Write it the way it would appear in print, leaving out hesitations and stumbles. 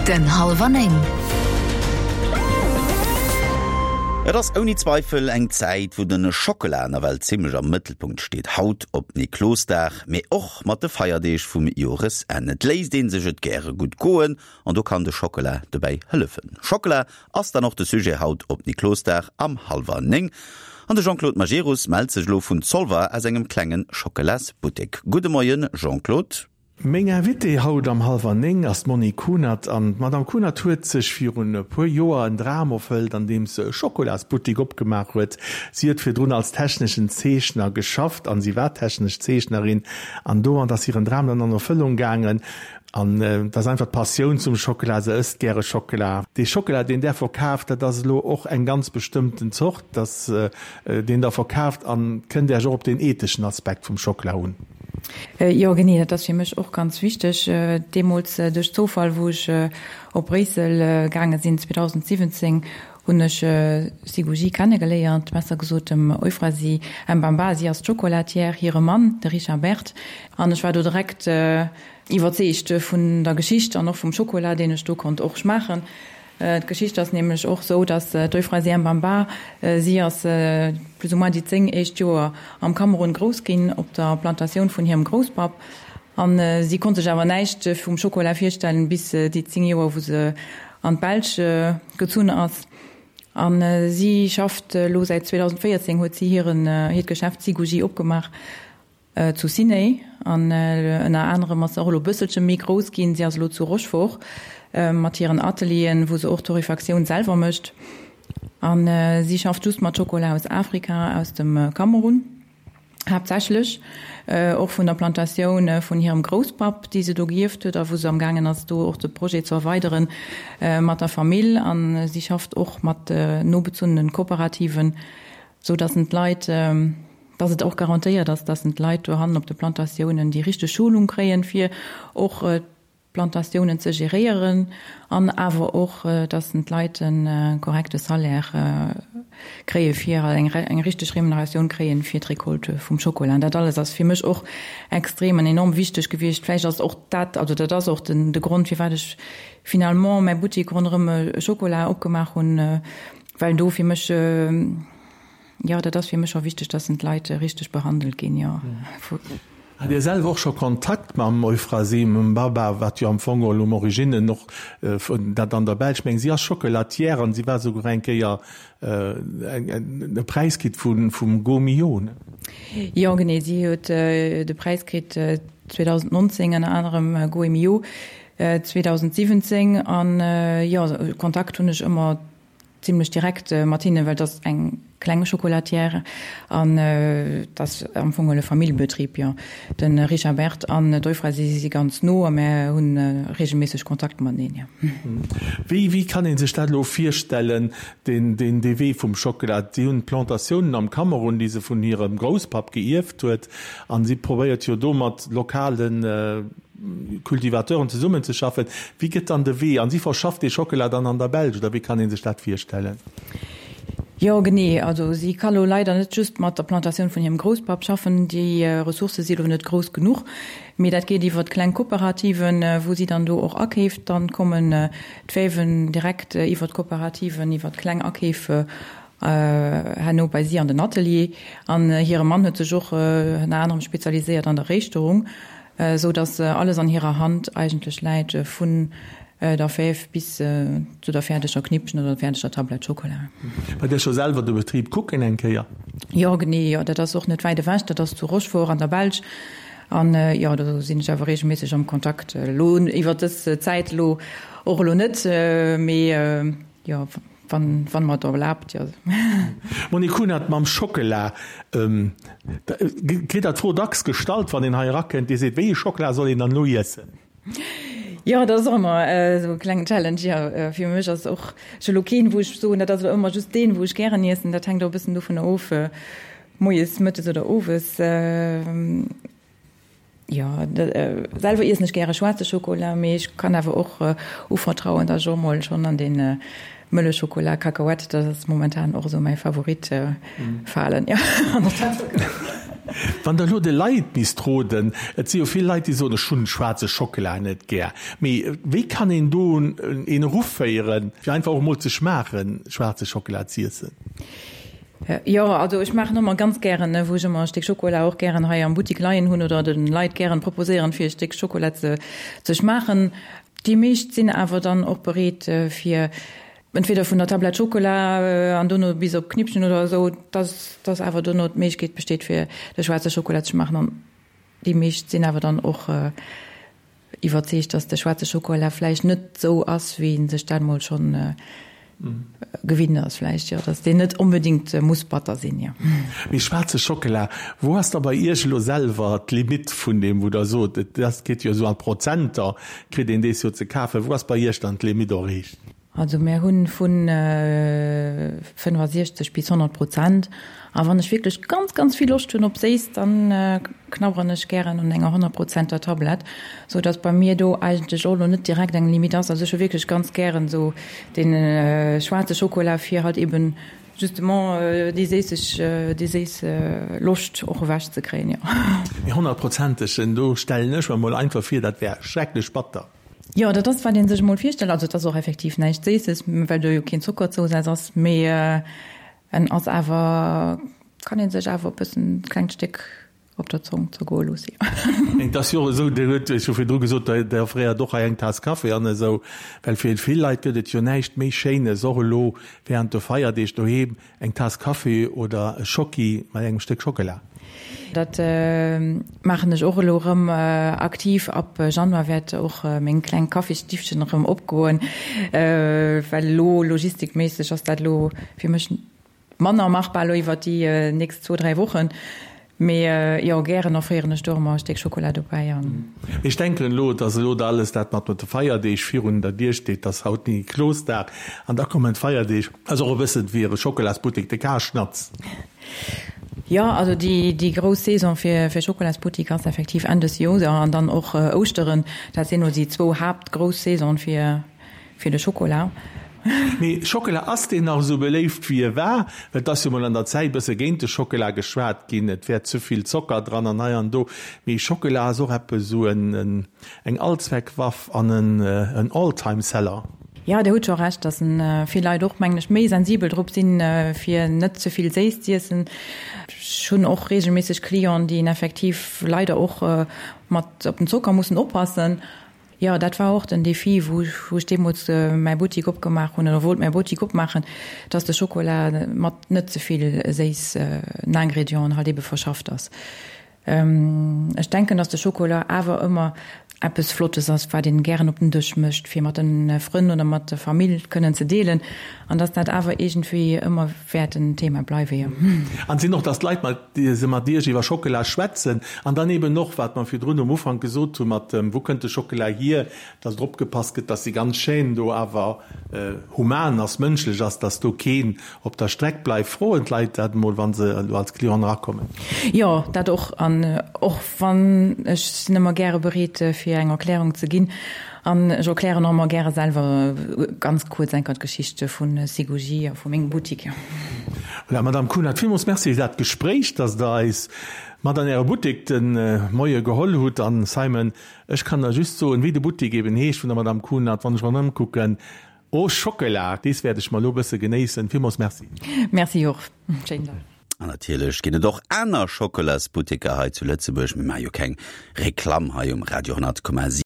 Den Hallwer 9. Et ass ouni Zweifel eng Zäit, wou de Schockela nawell zimmlech am Mëttelpunkt steet. Haut op Niklosdag, mee och mat de Feierdeeg vum Joresenn. Et léisst ee sech et gäre gutt goen an do kann de Schockela dobäi hëllefen. Schockela ass dann och de Sujet haut op Niklosdag am hallwer 9. An de Jean-Claude Majerus mellt sech elo vun Zolwer aus engem klenge Schockelasbuttek. Gudde Moien Jean-Claude. Meng Invitée haut am hallwer 9 ass d'Monique Kunert. An d'Madame Kunert huet sech virun e puer Joer en Dram erfëllt, andeems se e Schokolasbuttik opgemaach huet. Si huet virdrun als techneschen Zeechner geschafft an si war technesch Zeechnerin an domat ass hiren Dram dann an Erfëllung gaangen. An et ass einfach d'Passioun zum Schockela, se ësst gäre Schockela. Dee Schockela, deen där verkaaft, dat ass elo och eng ganz bestëmmten Zort, dass deen der verkaaft. An kënnt Äech och op deen etheschen Aspekt vum Schockela un? Jo, genee, dat ass fir mech och ganz wichteg. Deemools duerch Zoufall, wou ech op Bréissel gaange sinn 2017, hunn ech Siguji kennegeléiert, besser gesot dem Euphrasie Mbamba, si ass d'Chocolatière, hire Mann, de Richard Berthe. An ech war do direkt Iwwerzeegt vun der Geschicht an och vum Schokola, deen ech do konnt och schmaachen. D'Geschicht ass nämlech och sou, dass d'Euphrasie Mbamba, si ass plus ou moins déi 10 éischt Joer am Kamerun grouss ginn, op der Plantatioun vun hirem Grousspapp. An si konnt sech awer näischt vum Schokola virstellen, bis déi 10 Joer, wou se an d'Belsch gezunn ass. A si schafft elo säit 2014, huet si hiren, hiert Geschäft Siguji opgemaach. Zu Ciney an ënner anerem ass se och elo e bësselche méi grouss ginn. Si ass elo zu Rochefort mat hiren Atelieren, wou se och d'Torréfactioun selwer mécht. A si schafft just mat Schokola aus Afrika, aus dem Kamerun haaptsächlech, och vun der Plantatioun vun hirem Grousspapp, déi se do gierft huet a wou se amgaangen ass, do och de Projet ze erweidere mat der Famill. A si schafft och mat nobezunnene Kooperativen, sou datt en d'Leit, dass et och garantéiert ass, dass d'Leit dohannen op de Plantatiounen déi richteg Schulung kréien, fir och d'Plantatiounen ze geréieren an awer och, dass d'Leit e korrekte Salaire kréie fir eng richteg Remuneratioun kréien fir d'Recolte vum Schokola. An dat alles ass fir mech och extrem an enorm wichteg gewiescht. Vläicht ass och dat, also dat ass och den de Grond, firwat ech finalement mäi Buttik ronderëm Schokola opgemaach hunn, well do fir mech, Jo, dat ass fir mech scho wichteg, dass d'Leit richteg behandelt ginn, jo. Hat Dir selwer och scho Kontakt mam Euphrasie Mbaba, wat jo am Fong geholl um Originen och dat an der Belsch, meng si ass Chocolatière an si war souguer eng Kéier e Präis kritt vum Gault-Millau, ne? Jo, genee, si huet de Präis kritt 2019, ënner anerem Gault-Millau 2017 an jo, Kontakt hunn ech ëmmer Zimlech direkt mat hinnen, well et ass eng kleng Chocolatière an et ass am Fong e Familljebetrib, jo. De Richard Berthe an d'Euphrasie, si si ganz no a mär hu reegelméisseg Kontakt mateneen, jo. Wéi, wéi kann ee sech dat elo virstellen, deen, deen, dee Wee vum Schockela? Si hunn Plantatiounen am Kamerun, déi se vun hirem Grousspapp geierft huet, an si probéiert jo do mat lokalen, Cultivateuren zesummenzeschaffen. Wéi gëtt dann de Wee? An si verschafft dee Schockela dann an der Belsch, oder wéi kann ee sech dat virstellen? Jo, genee. Also si ka lo leider net just mat der Plantatioun vun hirem Grousspapp schaffen. Déi Ressourcë si lo net grouss genuch. Mee dat geet iwwer kleng Kooperativen, wou si dann do och akeeft. Dann kommen d'Fäven direkt iwwer d'Kooperativen, iwwer kleng Akeef herno bei si an den Atelier. An hire Mann huet sech och ënner anerem spezialiséiert an der Réischterung. Esou dass alles an hirer Hand eigentlech läit, vun der Fäf bis zu der fäerdeger Knippchen oder der fäerdeger Tablett Schokola. War Dir scho selwer de Betrib kucken eng Kéier? Jo, genee, jo. Dat ass och net wäit ewech, dat ass zu Rochefort an der Belsch. An jo, do sinn ech awer reegelméisseg am Kontakt. Elo iwwer dës Zäit elo och elo net, mee jo. Wann, wann mer et erlaabt, jo. Monique Kunert, Mam Schockela, kritt der d'Fro dacks gestallt, wann een hei erakënnt, dee seet, wéi ee Schockela soll een dann elo iessen? Jo, dat ass och ëmmer esou e klengen Challenge, jo. Fir mech ass och, ech hu elo keen, wou ech soen, dat ass elo ëmmer just deen, wou ech gären iessen. Dat hänkt och e bëssen dovunner of, moies, mëttes oder owes. Jo, selwer iessen ech gäre schwaarze Schokola, mee ech kann awer och uvertrauen, datt ech och mol schonn an dee mëlle Schokola, Cacahuète, dat ass momentan och esou mäi Favorit, falen. Jo. Wann Der elo de Leit misst roden, et si jo vill Leit, déi soen, ech hunn schwaarze Schockela net gär, mee wéi kann een do een eruféieren, fir einfach och emol ze schmaachen, schwaarze Schockela z'iessen? Jo, also ech maachen ëmmer ganz gären, wou ech ëmmer e Stéck Schokola och gären hei am Buttik leien hunn oder de Leit gären proposéieren, fir e Stéck Schokola ze ze schmaachen. Déi meescht sinn awer dann och bereet, fir entweder vun der Tablett Schokola an dono bis op d'Knippchen oder esou, dass dass awer dono d'Méiglechkeet besteet, fir de schwaarze Schokola ze schmaachen. An déi meescht sinn awer dann och iwwerzeegt, dass de schwaarze Schokola vläicht net esou ass, wéi een sech dat mol schonn gewinnt ass vläicht, jo, dass deen net onbedéngt muss batter sinn, jo. Mee schwaarze Schockela, wou ass da bei Iech elo selwer d'Limitt vun deem, wou Der sot, et ass, geet jo esou an d'Prozenter, kritt een dees jo ze kafen, wou ass bei Iech dann d'Limitt erreecht? Also mär hunn vu 65 bis 100 Prozent. A wann ech wierklech ganz, ganz vill Loscht hunn op Séiss, dann knabberen ech gären un enger 100 Prozenter Tablett, sou dass bei mir do eigentlech och elo net direkt eng Limite ass. Also ech hu wierklech ganz gären esou dee schwaarze Schokola fir halt eben justement déi séisseg, déi séiss Loscht och ewech ze kréien, jo. Mee honnertprozentegen, do stellen ech mer mol einfach vir, dat wär schrecklech batter. Jo, dat ass wat een sech emol virstellt. Also et ass och effektiv näischt Séisses, well do jo keen Zockerzousaz ass, mee en ass awer, kann een sech awer e bëssen, e klengt Stéck op der Zong zergoe loosse, jo. Et ass jo och esou, Dir huet jo virdru gesot, Der offréiert och hei eng Taass Kaffi an esou, well fir vill Leit gëtt et jo näischt méi Schéines, och elo während de Feierdeeg doheem, Eng Taass Kaffi oder e Schocki mat engem Stéck Schockela. Dat maachen ech och elo erëm aktiv. Ab Januar wäert och meng kleng Kaffisstiffchen erëm opgoen, well elo logistikméisseg ass dat elo fir mech manner machbar elo iwwert déi nächst zwou, dräi Wochen. Mee jo, gären offréieren ech do och emmer e Stéck Schokola dobäi an. Mee ech denken elo, dass elo da alles dat mat de Feierdeeg virun der Dier steet, dass haut Niklosdag an da kommen d'Feierdeeg, ass och e bëssen wéi e Schokolasbuttek, de Karschnatz. Jo, also déi déi grouss Saison fir fir Schokolasbuttik ass effektiv Enn des Joers an dann och Ouschteren. Dat sinn elo déi zwou haaptgrouss Saisone fir Fir de Schokola. Mee Schockela, ass deen nach esou beléift wéi e war? Well et ass jo mol an der Zäit bësse géint de Schockela geschwat ginn, et wär ze vill Zocker dran an hei an do. Mee Schockela ass och eppes esou en eng Allzweckwaff an en All-Time-Seller. Jo, Dir hutt scho Recht, dass vill Leit och, mengen ech, méi sensibel drop sinn, fir net ze vill séiss z'iessen. Ech hunn och reegelméisseg Clienten, déi effektiv leider och mat op den Zocker mussen oppassen. Jo, dat war och den Défi, wou ech deemools mäi Buttik opgemaach hunn, oder wollt mäi Buttik opmaachen, dass de Schokola mat net ze vill séissen Ingredienten halt ebe verschafft ass. Ech denken, dass de Schokola awer ëmmer eppes Flottes ass, wat een gären op den Dësch mécht, fir mat de Frënn oder mat der Famill kënnen ze deelen, an dass dat awer iergendwéi ëmmer wäert en Thema bleiwen, jo. An sinn och, dass d'Leit mat se mat Iech iwwer Schockela schwätzen an dann eben och, wat mer virdrun um Ufank gesot hu mat dem, wou kënnt de Schockela hier, dass drop gepasst gëtt, dass déi ganz Chaîne do awer human ass, mënschlech ass, dass do keen op der Streck bleift. Froen d'Leit dat emol, wa se elo als Clienten erakommen? Jo, dat och. An och wann, ech sinn ëmmer gäre bereet, fir eng Erklärung ze ginn. An ech erklären och ëmmer gäre selwer ganz kuerz enker d'Geschicht vu Sigoji a vu mengem Buttik. Voilà, Madame Kunert, villmools Merci fir dat Gespréich, dass Der eis mat an Äre Buttek de Moie geholl hutt. An Simon, ech kann der just soen, wéi de Buttek eben heescht vun der Madame Kunert, wann ech mer ëmkucken, Oh Schockela, dees wäert ech mer elo bësse genéissen. Villmools Merci. Merci och. Schéinen Dag. An natierlech ginn et och aner Schockelasbutteker hei zu Lëtzebuerg. Mir maache jo keng Reklamm hei um Radio 10,7.